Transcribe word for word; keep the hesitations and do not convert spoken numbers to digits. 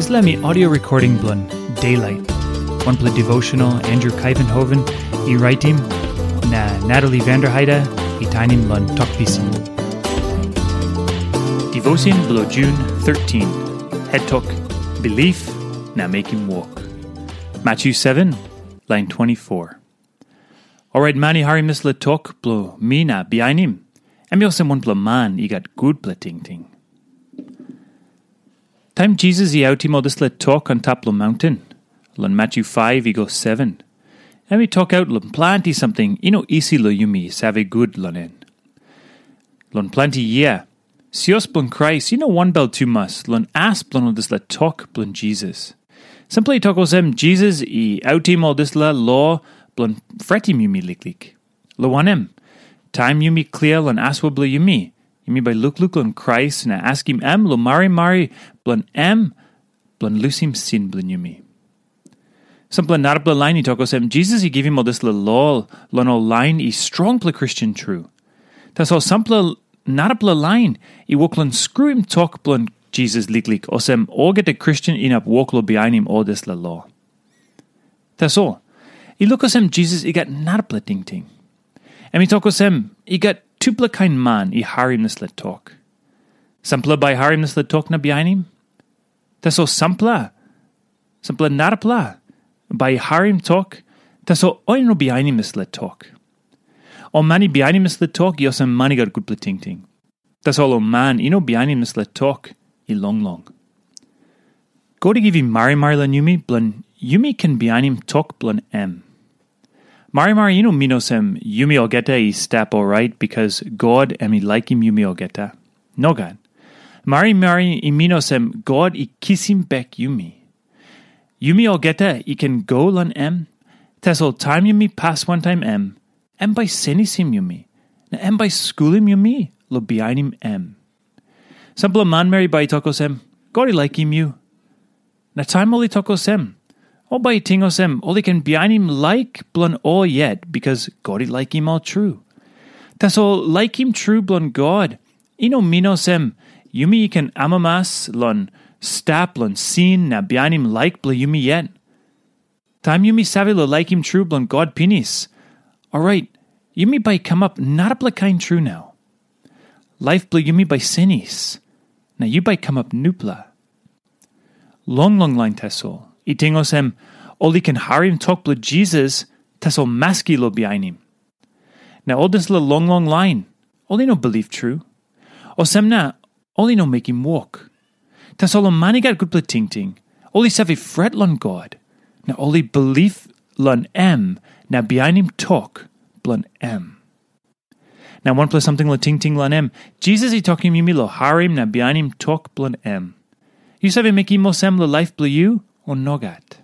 Dispela mi audio recording bilong Daylight, wanpela devotional Andrew Kaivenhoven i raitim, na Natalie Vanderheide i tainim long Tok Pisin. Devotion bilong June thirteen, head tok, Belief na Mekim Wok. Matthew seven, lain twenty-four. Orait man i harim dispela tok bilong mi na bihainim, em i olsem wanpela man i gat gutpela tingting. Taim Jisas i autim ol dispela tok antap long maunten, long Matthew five i go seven, em i tokaut long planti samting i no isi long yumi save gut long en. Long planti yia, sios bilong Krais i no wanbel tumas long as bilong ol dispela tok bilong Jisas. Sampela i tok olsem, Jisas i autim ol dispela lo bilong fretim yumi liklik. Long wanem, taim yumi klia long asua bilong yumi, yumi bai lukluk long Krais na askim em long marimari bilong em bilong lusim sin bilong yumi. Sampela narapela lain i tok olsem, Jisas i givim ol dispela lo long ol lain i strongpela Kristen tru. Tasol sampela narapela lain i wok long skruim tok bilong Jisas liklik, olsem olgeta Kristen inap wok long bihainim ol dispela lo. Tasol, i luk olsem Jisas i gat narapela tingting. Em i tok olsem, i gat tupela kain man i harim dispela tok. Sampela bai harim dispela tok na bihainim. Tasol sampela, sampela narapela, bai i harim tok, tasol ol i no bihainim dispela tok. Ol man i bihainim dispela tok i olsem man i gat gutpela tingting. Tasol ol man i no bihainim dispela tok i longlong. God i givim marimari long yumi bilong yumi ken bihainim tok bilong em. Marimari i no min olsem yumi olgeta i stap orait bikas God em i laikim yumi olgeta. Nogat. Marimari i min olsem God i kisim bek yumi. Yumi olgeta i ken go long em, tasol taim yumi pas wantaim em, em bai senisim yumi, na em bai skulim yumi long bihainim em. Sampela manmeri bai i tok olsem, God i laikim yu. Na taim ol i tok olsem, ol bai i ting olsem ol i ken bihainim laik bilong ol yet, bikas God i laikim ol tru. Tasol laikim tru bilong God i no min olsem yumi i ken amamas long stap long sin na bihainim laik bilong yumi yet. Taim yumi save long laikim tru bilong God pinis, orait yumi bai kamap narapela kain tru nau. Laip bilong yumi bai senis, na yu bai kamap nupela. Long long lain tasol, i ting olsem, ol i ken harim tok bilong Jisas, tasol maski long bihainim. Na ol dispela long long lain, ol i no bilip tru. Olsem na, ol i no mekim wok. Tasol ol man i gat gutpela tingting, ol i save fret long God, na ol i bilip long em na bihainim tok bilong em. Na wanpela samting long tingting long em, Jisas i tokim yumi long harim na bihainim tok bilong em. Yu save mekim olsem long laip bilong yu, o nogat?